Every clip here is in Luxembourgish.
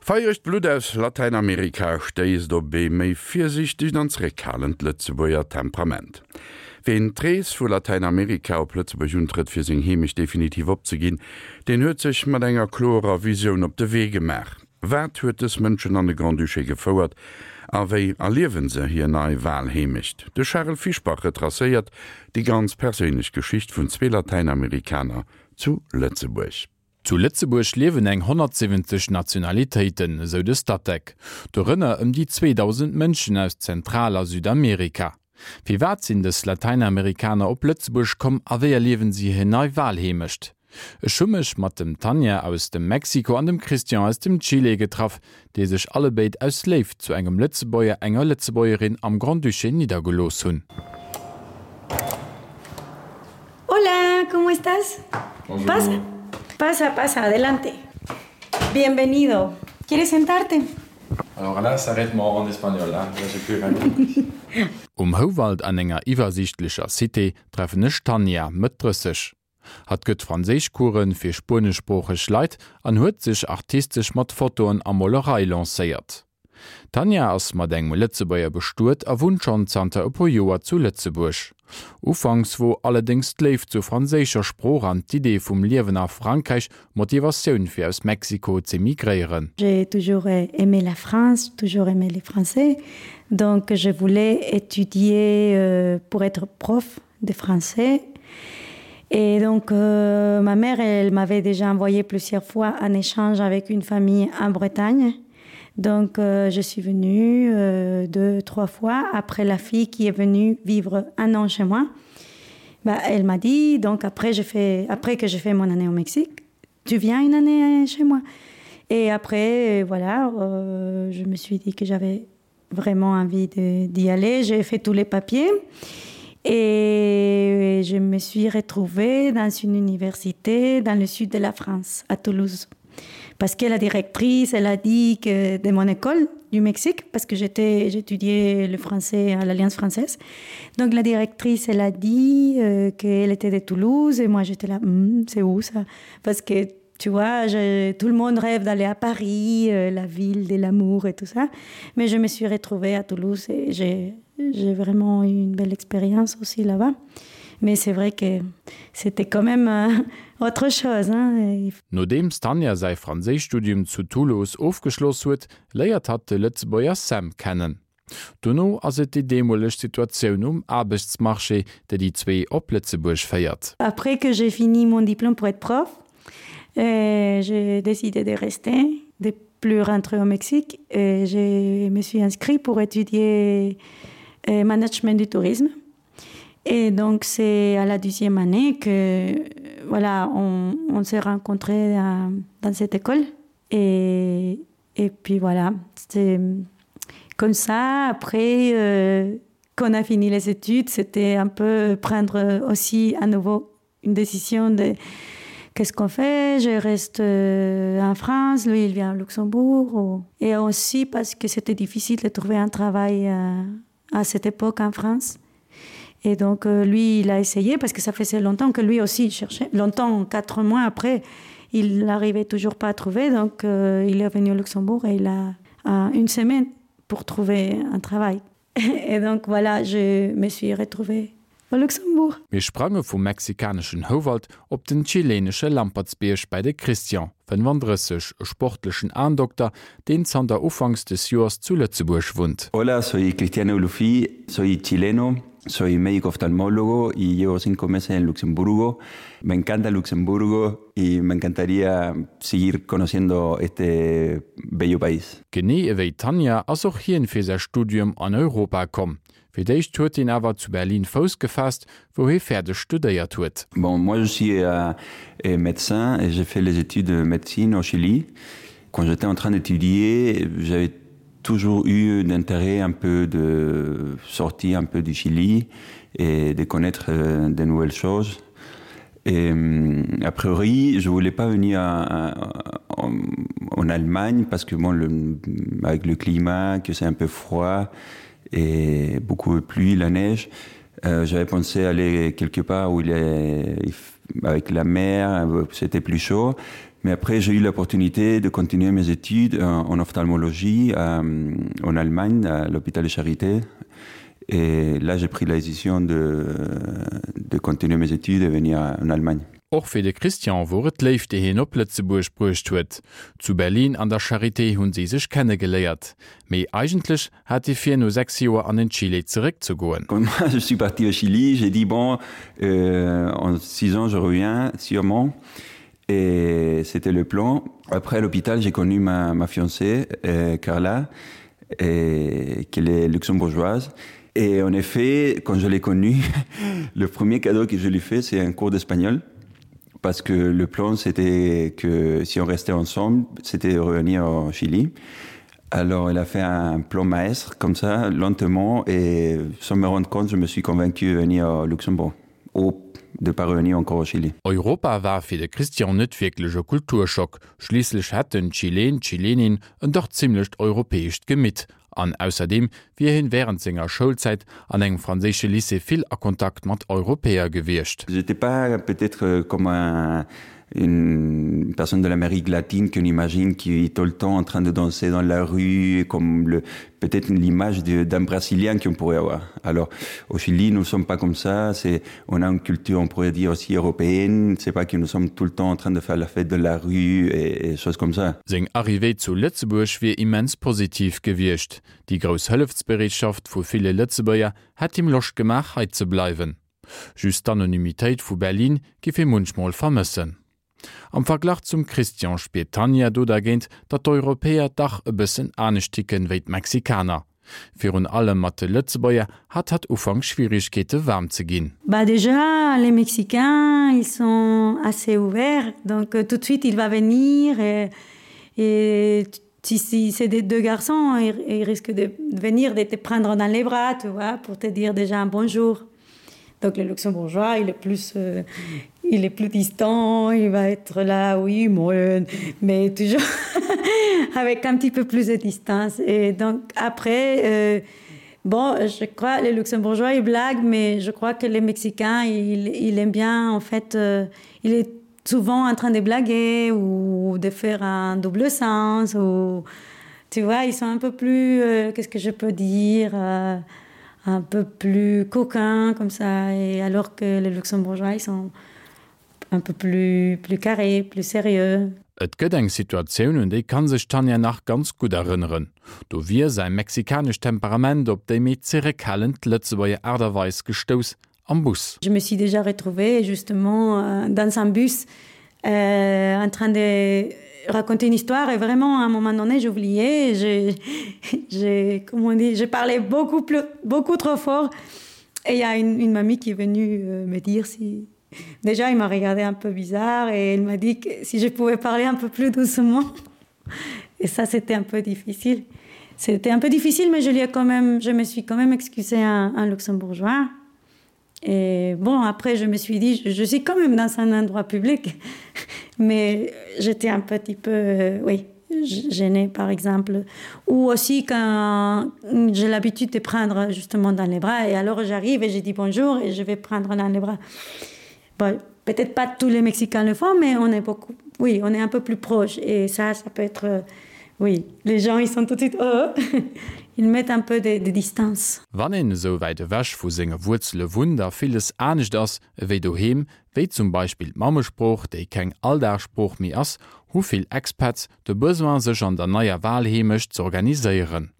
Feieregt Blutt aus Latäinamerika stéisst op ee méi virsiichtegt an zeréckhalend Lëtzebuerger Temperament. Ween d'Rees vu Latäinamerika op Lëtzebuerg untrëtt fir seng Heemecht definitiv opzeginn, deen huet sech mat enger klorer Visioun op de Wee gemaach. Wat huet dës Mënschen an de Grand-Duché gefouert a wéi erliewen se hir nei Walheemecht? De Charel Fischbach retracéiert déi ganz perséinlech Geschicht vun zwee Latäinamerikaner zu Lëtzebuerg. Zu Lëtzebuerg liewen eng 170 Nationalitéiten, esou de Statec. Dorënner ëm déi 2.000 Mënschen aus Zentral a Südamerika. Firwat sinn dës Latäinamerikaner op Lëtzebuerg komm a wéi erliewen si hir nei Walheemecht? Ech hu mech mat dem Tanja aus dem Mexiko an dem Christian aus dem Chile getraff, déi sech allebéid aus Léift zu engem Lëtzebuerger, enger Lëtzebuergerin am Grand-Duché niddergelooss hunn. Hola, ¿cómo estás? Bonjour. Pasa, pasa, pasa, adelante. Bienvenido. ¿Quieres sentarte? Alors là, s'arrête moi en espagnol, hein? Là, j'ai plus rien compris. Um Houwald an enger iwwersiichtlecher Cité treffen ech d'Tanja, Mëtt 30. Hatt gëtt Franséischcoursen fir spueneschsproocheg Leit an huet sech artistesch mat Fotoen a Molerei lancéiert. D'Tanja ass mat engem Lëtzebuerger bestuet a wunnt schonn zanter e puer Joer zu Lëtzebuerg. Ufanks wor allerdéngs d'Léift zur franséischer Sprooch an d'Idee vum Liewen a Frankräich Motivatioun fir aus Mexiko z'emigréieren. J'ai toujours aimé la France, toujours aimé les Français, donc je voulais étudier pour être prof de français. Et donc euh, ma mère, elle m'avait déjà envoyé plusieurs fois en échange avec une famille en Bretagne. Donc euh, je suis venue euh, deux, trois fois après la fille qui est venue vivre un an chez moi. Bah, elle m'a dit donc après, fait, après que j'ai fait mon année au Mexique, tu viens une année chez moi. Et après voilà, euh, je me suis dit que j'avais vraiment envie d'y aller. J'ai fait tous les papiers et je me suis retrouvée dans une université dans le sud de la France, à Toulouse. Parce que la directrice, elle a dit que de mon école du Mexique, parce que j'étais j'étudiais le français à l'Alliance française. Donc la directrice, elle a dit euh, qu'elle était de Toulouse et moi j'étais là mm, c'est où ça Parce que tu vois, je, tout le monde rêve d'aller à Paris, euh, la ville de l'amour et tout ça. Mais je me suis retrouvée à Toulouse et j'ai vraiment eu une belle expérience aussi là-bas. Mais c'est vrai que c'était quand même euh, autre chose. Hein. Nodeems d'Tanja säi Franséischstudium zu Toulouse ofgeschloss huet, léiert hatt de Lëtzebuerger Sam kennen. Dono ass et déi deemoleg Situatioun um Aarbechtsmarché, déi déi zwee op Lëtzebuerg féiert. Après que j'ai fini mon diplôme pour être prof, euh, j'ai décidé de rester, de plus rentrer au Mexique et je me suis inscrit pour étudier euh, management du tourisme. Et donc c'est à la deuxième année que voilà, on, on s'est rencontrés euh, dans cette école et, et puis voilà, c'est comme ça après euh, qu'on a fini les études, c'était un peu prendre aussi à nouveau une décision de qu'est-ce qu'on fait, je reste euh, en France, lui il vient au Luxembourg ou... et aussi parce que c'était difficile de trouver un travail euh, à cette époque en France. Et donc euh, lui il a essayé parce que ça faisait longtemps que lui aussi cherchait longtemps quatre mois après il n'arrivait toujours pas à trouver donc euh, il est venu au Luxembourg et il a euh, une semaine pour trouver un travail. Et donc voilà, je me suis retrouvée au Luxembourg. Mir sprange vum mexikaneschen Houwald op den chilenesche Lampertsbierg bei de Christian, 35, e sportlechen Aendokter, deen zanter ufanks des Joers zu Lëtzebuerg wunnt. Hola, soy Cristian Eulufi, soy chileno, soy médico oftalmólogo y llevo cinco meses en Luxemburgo. Me encanta Luxemburgo y me encantaría seguir conociendo este bello país. Genee ewéi d'Tanja ass och hien fir säi Studium an Europa komm. Fir d'éischt huet hien awer zu Berlin Fouss gefaasst, wou hie fäerdeg studéiert huet. Bon, moi je suis médecin et j'ai fait les études de médecine au Chili. Quand j'étais en train d'étudier, j'avais toujours eu d'intérêt un peu de sortir un peu du Chili et de connaître de nouvelles choses. Et a priori, je voulais pas venir à, à, en, en Allemagne parce que bon, le, avec le climat, que c'est un peu froid et beaucoup de pluie, la neige. Euh, J'avais pensé aller quelque part où il est avec la mer, c'était plus chaud. Mais après j'ai eu l'opportunité de continuer mes études en, en ophtalmologie euh, en Allemagne à l'hôpital de Charité. Et là j'ai pris la décision de, de continuer mes études et venir en Allemagne. Och fir de Christian wor et d'Léift déi hien op Lëtzebuerg bruecht huet. Zu Berlin an der Charité hunn si sech kennegeléiert. Mee eigentlech hat hie vir no 6 Joer an den Chile zeréckzegoen. Quand moi je suis parti au Chili, j'ai dit bon euh, en 6 ans je reviens sûrement et c'était le plan. Après à l'hôpital, j'ai connu ma, ma fiancée euh, Carla et qu'elle est luxembourgeoise. Et en effet, quand je l'ai connue, le premier cadeau que je lui fais, c'est un cours d'espagnol parce que le plan c'était que si on restait ensemble, c'était de revenir au Chili. Alors elle a fait un plan maestre comme ça lentement et sans me rendre compte, je me suis convaincu de venir au Luxembourg ou de pas revenir encore au Chili. Europa war fir de Christian net wierklech e Kulturschock, schliisslech hätt den Chilen, d'Chilenin en dach zimmlecht europäescht Gemitt an ausserdeem wier hien wärend senger Schoulzäit an engem franséische Lycée vill a Kontakt mat Europäer gewiescht. J'étais pas peut-être comme un une personne de l'Amérique latine qu'on imagine qui est tout le temps en train de danser dans la rue comme le peut-être l'image d'un brésilien qu'on pourrait avoir. Alors au Chili nous sommes pas comme ça, c'est on a une culture on pourrait dire aussi européenne, c'est pas que nous sommes tout le temps en train de faire la fête de la rue et, et choses comme ça. Seng Arrivée zu Lëtzebuerg wier immens positiv gewiescht. Déi grouss Hëllefsbereetschaft vu ville Lëtzebuerger hätt him Loscht gemaach hei ze bleiwen. Just d'Anonymitéit vu Berlin giff hie munchmol vermëssen. Am Verglach zum Christian spiert d'Tanja do dergéint, datt d'Europäer dach e bëssen anescht ticken wéi d'Mexikaner. Virun allem mat de Lëtzebuerger hat hatt ufanks Schwierigkeete waarm ze ginn. Bah déjà les Mexicains ils sont assez ouverts donc tout de suite il va venir et, et si, si c'est des deux garçons ils, ils risquent de venir de te prendre dans les bras tu vois pour te dire déjà un bonjour. Donc le luxembourgeois il est plus euh, il est plus distant, il va être là oui moi mais toujours avec un petit peu plus de distance et donc après euh, bon je crois les luxembourgeois ils blaguent mais je crois que les mexicains ils, il aiment bien en fait euh, il est souvent en train de blaguer ou de faire un double sens ou tu vois ils sont un peu plus euh, qu'est-ce que je peux dire euh, un peu plus coquin comme ça et alors que les luxembourgeois ils sont un peu plus plus carré plus sérieux. Et gëtt eng Situatioun, un déi kann sech d'Tanja nach ganz gutt erënneren. Do wier säi mexikanescht Temperament op déi méi zeréckhalend Lëtzebuerger Aart a Weis gestouss am Bus. Je me suis déjà retrouvée justement euh, dans un bus euh, en train de raconter une histoire et vraiment à un moment donné j'oubliais j'ai j'ai comment on dit je parlais beaucoup plus beaucoup trop fort et il y a une, une mamie qui est venue euh, me dire si déjà il m'a regardé un peu bizarre et elle m'a dit que si je pouvais parler un peu plus doucement et ça c'était un peu difficile c'était un peu difficile mais je lui ai quand même je me suis quand même excusé un, un luxembourgeois Et bon après je me suis dit je, je suis quand même dans un endroit public mais j'étais un petit peu euh, oui gênée par exemple ou aussi quand j'ai l'habitude de prendre justement dans les bras et alors j'arrive et j'ai dit bonjour et je vais prendre dans les bras bon, peut-être pas tous les mexicains le font mais on est beaucoup oui on est un peu plus proche et ça ça peut être euh, oui les gens ils sont tout de suite oh ils mettent un peu de, de distance. Wann een esou wäit ewech vu senge Wuerzele wunnt a villes anescht ass ewéi doheem, wéi zum Beispill d'Mammesprooch, déi keng Alldagssprooch méi ass, hu vill Expats de Besoin sech an der neier Walheemecht z'organiséieren.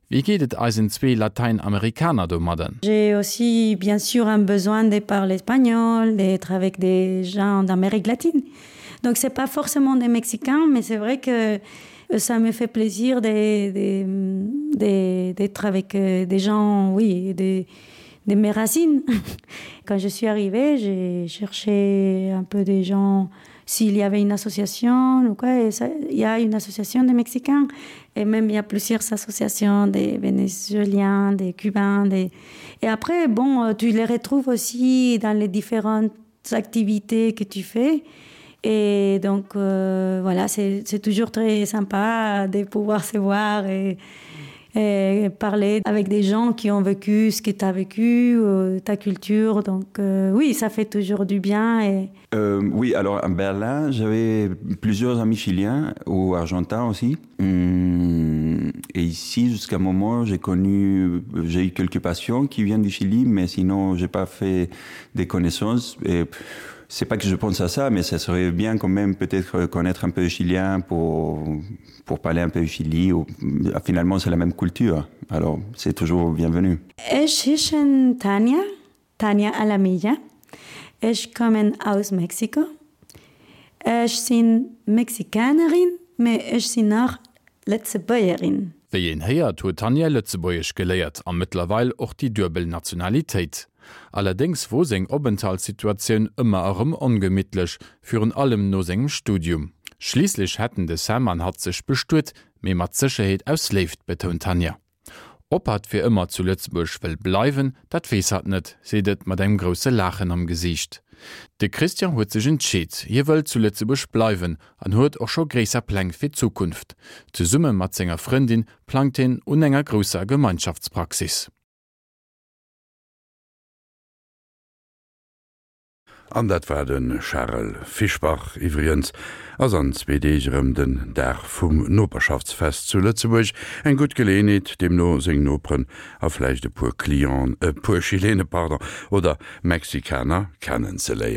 Wéi geet et eisen zwee Latäinamerikaner domadden? J'ai aussi bien sûr un besoin de parler espagnol, d'être avec des gens d'Amérique latine. Donc c'est pas forcément des Mexicains, mais c'est vrai que ça me fait plaisir d'être avec euh, des gens oui de, de mes racines. Quand je suis arrivée, j'ai cherché un peu des gens, s'il y avait une association ou quoi et ça, il y a une association des Mexicains et même il y a plusieurs associations des Vénézuéliens, des Cubains des... et après bon euh, tu les retrouves aussi dans les différentes activités que tu fais et donc euh, voilà c'est toujours très sympa de pouvoir se voir et... Et parler avec des gens qui ont vécu ce que tu as vécu, euh, ta culture. Donc euh, oui, ça fait toujours du bien. Et... Euh, oui, alors à Berlin, j'avais plusieurs amis chiliens ou argentins aussi. Hum, et ici, jusqu'à un moment, j'ai connu, j'ai eu quelques patients qui viennent du Chili, mais sinon, j'ai pas fait des connaissances. Et c'est pas que je pense à ça, mais ça serait bien quand même peut-être connaître un peu chilien pour, pour parler un peu Chili. Ou, finalement, c'est la même culture. Alors, c'est toujours bienvenu. Ech heeschen Tania, Tania Alamilla. Ech kommen aus Mexiko. Ech sinn Mexikanerin, mee ech sinn och Lëtzebuergerin. Wéi een héiert, huet d'Tanja Lëtzebuergesch geléiert a mëttlerweil och déi duebel Nationalitéit. Allerdéngs wor seng Openthaltssituatioun ëmmer erëm ongemittlech, virun allem no sengem Studium. Schliisslech hätten de Sam an hatt sech bestuet, mee mat Sécherheet aus Léift, betount d'Tanja. Ob hatt fir ëmmer zu Lëtzebuerg wëll bleiwen, dat weess hatt net, seet et mat engem grousse Laachen am Gesiicht. De Christian huet sech entscheet, hie wëll zu Lëtzebuerg bleiwen an huet och scho gréisser Pläng fir d'Zukunft. Zesumme mat senger Frëndin plangt hien un enger grousser Gemeinschaftspraxis. An dat war de Charel Fischbach. Iwwregens ass an zwee Deeg erëm den Dag vum Noperschaftsfest zu Lëtzebuerg. Eng gutt Geleeënheet, deemno seng Noperen a vläicht e puer Clienten, e puer Chilene, pardon, oder Mexikaner kennenzeléieren.